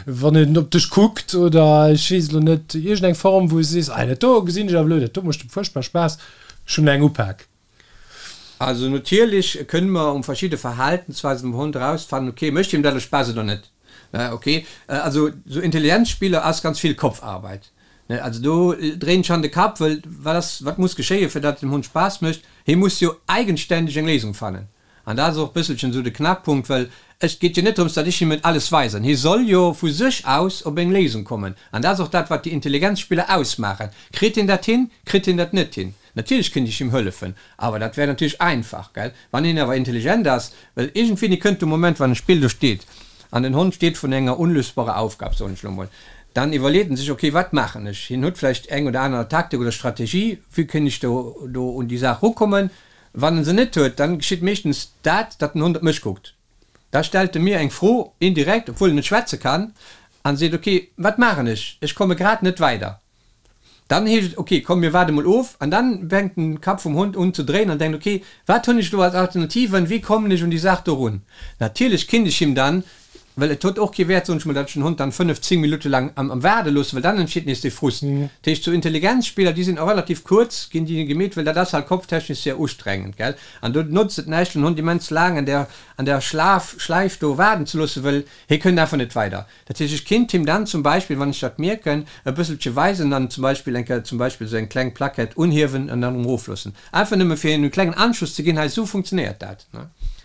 wann en op dech kuckt oder ech weess elo net, iergendeng Form, wou s de sees, ah dat do gesinn ech awer elo, dat do mécht fuerchtbar Spaass, ech hunn eng upak. Also natierlech kënne mer um verschidde Verhaltensweisen vum Hond erausfannen, ok, mécht him dat elo Spaass oder net. Ne, ok. Also sou Intelligenzspiller ass ganz vill Kopfarbeit. Ne, also do dréint schonn de Kapp, wëll wat ass, wat muss geschéien, fir datt et dem Hond Spaass mécht? Hie muss jo eigenständeg eng Léisung fannen. An dat ass och e bësselchen esou de Knackpunkt, well et geet jo net drëms, datt ech him et alles weisen. Hie soll jo vu sech aus op eng Léisung kommen. An dat ass och dat, wat déi Intelligenzspiller ausmaachen. Kritt hien dat hin? Kritt hien dat net hin? Natierlech kéint ech him hëllefen, awer dat wär natierlech einfach, gell? Wann een awer intelligent ass, well iergendwéini kënnt de Moment, wann e Spill do steet an den Hond steet vrun enger unlösbarer Aufgab, soen ech elo mol, dann iwwerleet en sech, ok, wat maachen ech? Hien huet vläicht eng oder aner Taktik oder Strategie, wéi kéint ech do do un déi Saach rukommen? Wann en se net huet, dann geschitt meeschtens dat, datt den Hond op mech kuckt. Da stellt e mir eng Fro, indirekt, obwuel en net schwätze kann, an seet, ok, wat maachen ech? Ech komme grad net weider. Dann heescht et, ok, komm mir waarde mol of. An dann fänkt den Kapp vum Hond un ze dréinen an denkt, ok, wat hunn ech elo als Alternativen, wéi kommen ech un déi Saach do run? Natierlech kinnt ech him dann, well et huet och kee Wäert, soen ech mol, datt ech den Hond dann 5, 10 Minutte laang am Waarde loossen, well dann entsteet nees dee Frust. Dat heescht, sou Intelligenzspiller, déi sinn och relativ kuerz, ginn déi gemeet, well dat ass halt kopftechnesch sehr ustrengend, gell. An do notzt et näischt, den Hond immens laang an där, an där Schlaf, Schläif do waarden ze loossen, well hie kënnt einfach net weider. Dat heescht, ech kinnt him dann zum Beispill, wann ech dat mierken, e bësselche weisen an zum Beispill eng Kéier zum Beispill esou eng kleng Plaquette unhiewen an dann erëm erofloossen. Einfach nëmme fir him e klengen Anschuss ze ginn, hei esou funktionéiert dat.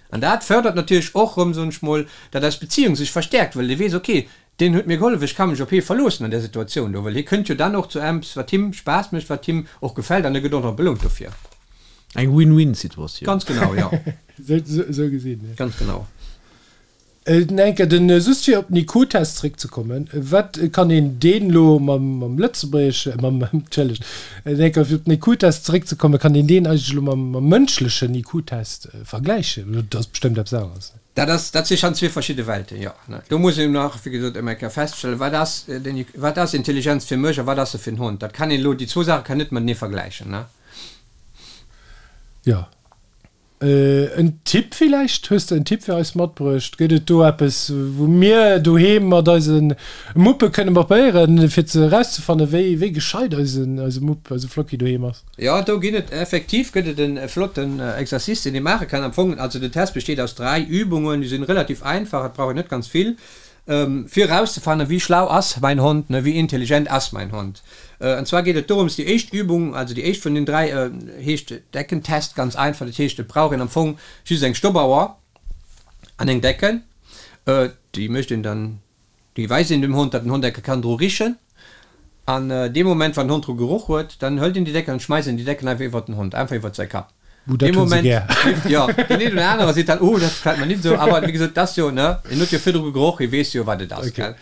An dat fërdert natierlech och erëm, soen ech mol, datt eis Beziehung sech verstäerkt, well dee weess, ok, deen huet mir gehollef, ech ka mech op hie verloossen an där Situatioun do, well hie kënnt jo dann och zu eppes, wat him Spaass mécht, wat him och gefält an e gëtt och nach belount dofir. Eng Win-Win-Situatioun. Ganz genau, jo. Esou gesinn, jo. Ganz genau. Enke den just fir op den IQ-Test zréckzekommen, wat kann een deen elo mam mam lëtzebuergesche mam entschëllegt enke fir op den IQ-Test zeréckzekommen, kann een deen eigentlech elo mam mam mënschlechen IQ-Test vergläichen? Dat ass bestëmmt eppes aneres. Dat ass, dat si schonn zwee verschidde Welten, jo. Do muss een nach, wéi gesot, ëm eng Kéier feststellen, wat ass den, wat ass Intelligenz fir mech a wat ass se fir den Hond? Dat kann een elo, déi zwou Saache kann een net matenee vergläichen, ne? Jo. En Tipp villäicht? Hues de en Tipp fir eis matbruecht? Gëtt et do eppes, wou mir doheem mat eise Muppe kënne probéieren, fir ze erauszefannen, wéi, wéi gescheit eisen, eise Mupp, eise Flocki doheem ass? Jo, do ginn et effektiv gëtt et e flotten Exercice, deen ee maache kann. Am Fong, also den Test besteet aus 3 Übungen, déi sinn relativ einfach, et brauch een net ganz vill, fir erauszefannen, wéi schlau ass mäin Hond, ne, wéi intelligent ass mäin Hond. An zwar geet et dorëms, déi éischt Übung, also déi éischt vun den 3, heescht Deckentest, ganz einfach. Dat heescht, et brauch een am Fong just eng Stoppauer an eng Decken, déi mécht een dann Déi weist een dem Hond, datt den Hond enke kann dru richen. An dee Moment, wann den Hond dru geroch huet, dann hëlt een déi Decken an schmeisst een déi Decken einfach iwwert den Hond, einfach iwwert säi Kapp. Buh, dat Dee hunn se Moment, gär. jo, deen een oder anere seet dann, Oh, dat gefält mer nit esou. Awer wéi gesot, et ass jo, ne, en huet jo virdru geroch, e weess jo, wat et ass, Okay.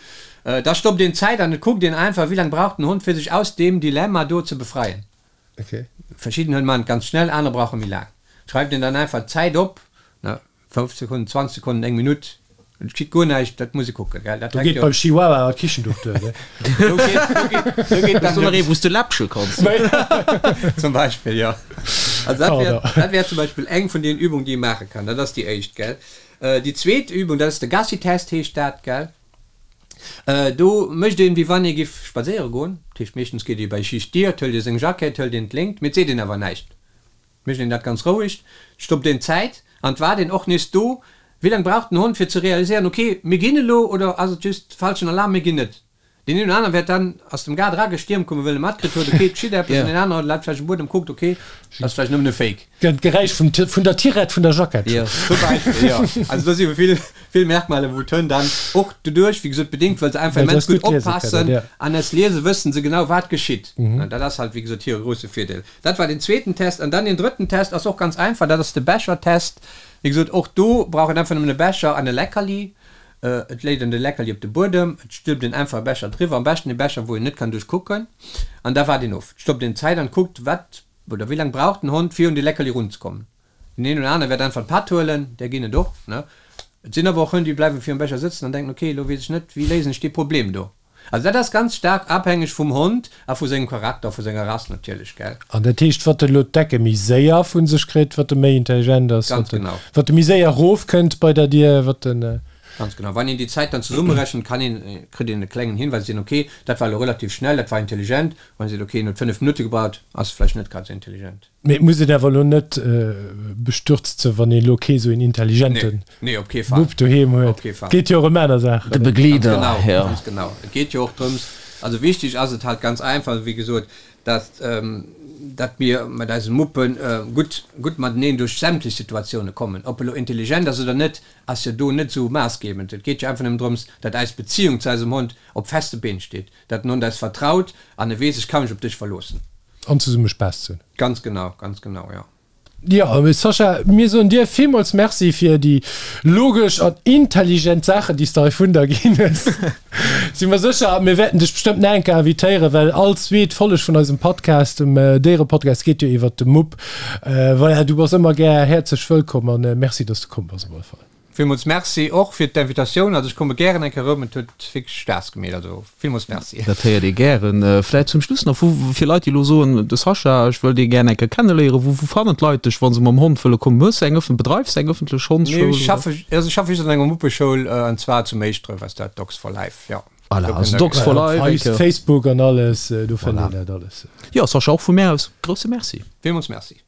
gell. Da stoppt een d'Zäit an et kuckt een einfach, wéi laang brauch den Hond, fir sech aus deem Dilemma do ze befreien. Okay. Verschidden Hënn maachen et ganz schnell, aner brauche méi laang. Schreift een dann einfach d'Zäit op, ne. 5 Sekonnen, 20 Sekonnen, eng Minutt, et geschitt guer näischt, dat muss ee kucken, gell, dat Do hänkt geet jo. beim Chihuahua d'Kichenduch duer, ne? Do geet, do geet, do geet Hues dann du nach de. ee wou s de läppche kanns? Zum Beispill, jo. Also dat wär, Pardon. dat wär zum Beispill eng vun deenen Übungen, déi ee maache kann. Dat ass déi éischt, gell. Déi zweet Übung, dat ass de Gassi-Test, heescht dat, gell. Do mécht een, wéi wann ee giff spadséiere goen. Dat heescht, meeschtens geet ee bei Schicht Dier, et hëlt ee seng Jackett, hëlt een d'Léngt, mee et seet een awer näischt. Mécht een dat ganz roueg, stoppt een d'Zäit an et waart een och nees do, wéi laang brauch den Hond fir ze realiséieren, ok, mir ginn elo oder ass et just falschen Alarm, mir ginn net. Deen een oder anere wäert dann aus dem Gaart eragestiermt kommen, well e matkritt huet, ok, et geschitt eppes an deen anere läit vläicht um Buedem, kuckt, ok, dat ass vläicht nëmmen e Fake. D'Geräisch vum vun der Tirette vun der Jackett. Jo, zum Beispill, jo. Also do si vill, vill Merkmaler, wou d'Hënn dann och doduerch, wéi gesot, bedéngt, well se einfach Well se immens eis gutt gutt liese kënnen, oppassen jo. an es liese wëssen se genau, wat geschitt. An dat ass halt, wéi gesot, hire grousse Virdeel. Dat war den zweeten Test. An dann den drëtten Test ass och ganz einfach, dat ass de Bechertest. Wéi gesot, och do brauch een einfach nëmmen e Becher an e Leckerli. Et léit een de Leckerli op de Buedem, et stülpt een einfach e Becher driwwer, am beschten e Becher, wou een net kann duerch kucken, an da waart een of. Et stoppt een d'Zäit an kuckt, wat oder wéi laang brauch den Hond, fir un de Leckerli runzekommen. Den een oder anere wäert einfach d'Patt huelen, där ginn et och, ne. Et sinn awer och Hënn, déi bleiwe virum Becher sëtzen an denken, ok, elo weess ech net, wéi léisen ech dee Problem do. Also dat ass ganz staark abhängeg vum Hond a vu sengem Charakter, vu senger Rass natierlech, gell. An dat heescht, wat e lo d'Decke méi séier vu sech kritt, wat e méi intelligent ass, Ganz wat e, genau. wat e méi séier erofkënnt bei der Dier, wat en. Ganz genau. Wann een déi Zäit dann zesummerechent, kann een, kritt een e klengen Hinweis, seet een, ok, dat war elo relativ schnell, dat war intelligent. Wann een seet, ok, en huet 5 Minutte gebraucht, ass vläicht net grad esou intelligent. Mee et muss een awer elo net bestürzt sinn, wann een elo kee sou een intelligente Nee, op kee Fall. Mupp doheem Op huet. kee Fall. Et geet jo och ëm aner Saachen. De Begleeder, Ganz genau, ja. ganz genau. Et geet jo och drëms, also wichteg ass et halt ganz einfach, wéi gesot, dass, datt mir mat eise Muppe gutt, gutt mateneen duerch sämtlech Situatioune kommen. Ob e lo intelligent ass oder net, ass jo do net esou maassgebend. Et geet jo einfach nëmmen drëms, datt eis Beziung zu eisem Hond op feste Been steet, datt den Hond eis vertraut an e weess, ech ka mech op dech verloossen. An zesumme Spaass ze hunn. Ganz genau, ganz genau, jo. Jo, Sascha, mir soen dir villmools Merci fir déi logesch an intelligent Saachen, déi s de hei vun der ginn hues. Si mer sécher, mir wäerten dech bestëmmt nach eng Kéier invitéieren, well all zweet Folleg vun eisem Podcast, dem Déierepodcast, geet jo iwwert de Mupp. Voilà, du bass ëmmer gär häerzlech wëllkomm an Merci, dass du komm bass op alle Fall. Villmools Merci och fir d'Invitatioun. Also ech komme gären eng Kéier erëm, et huet wierklech Spaass gemeet. Also villmools Merci. Dat héiert ee gären. Vläit zum Schluss nach, wou, fir Leit déi elo soen, de Sascha, ech wëll dee gär eng Kéier kenneléieren, wou, wou fannen d'Leit dech, wa se mam Hond wëlle kommen? Hues de eng ëffen, bedreifs de eng ëffentlech Nee, Hondsschoul, ech oder? schaffe, also ech schaffe just an enger Muppeschoul, an zwar zu Méischdref ass dat, Dogs for Life, jo. Voilà, Do also kënnt der Dogs for Voilà, Life, op eng Kéier. Facebook an alles, do fënnt Voilà. een dat alles. Jo, Sascha, och vu mär aus grousse Merci. Villmools Merci.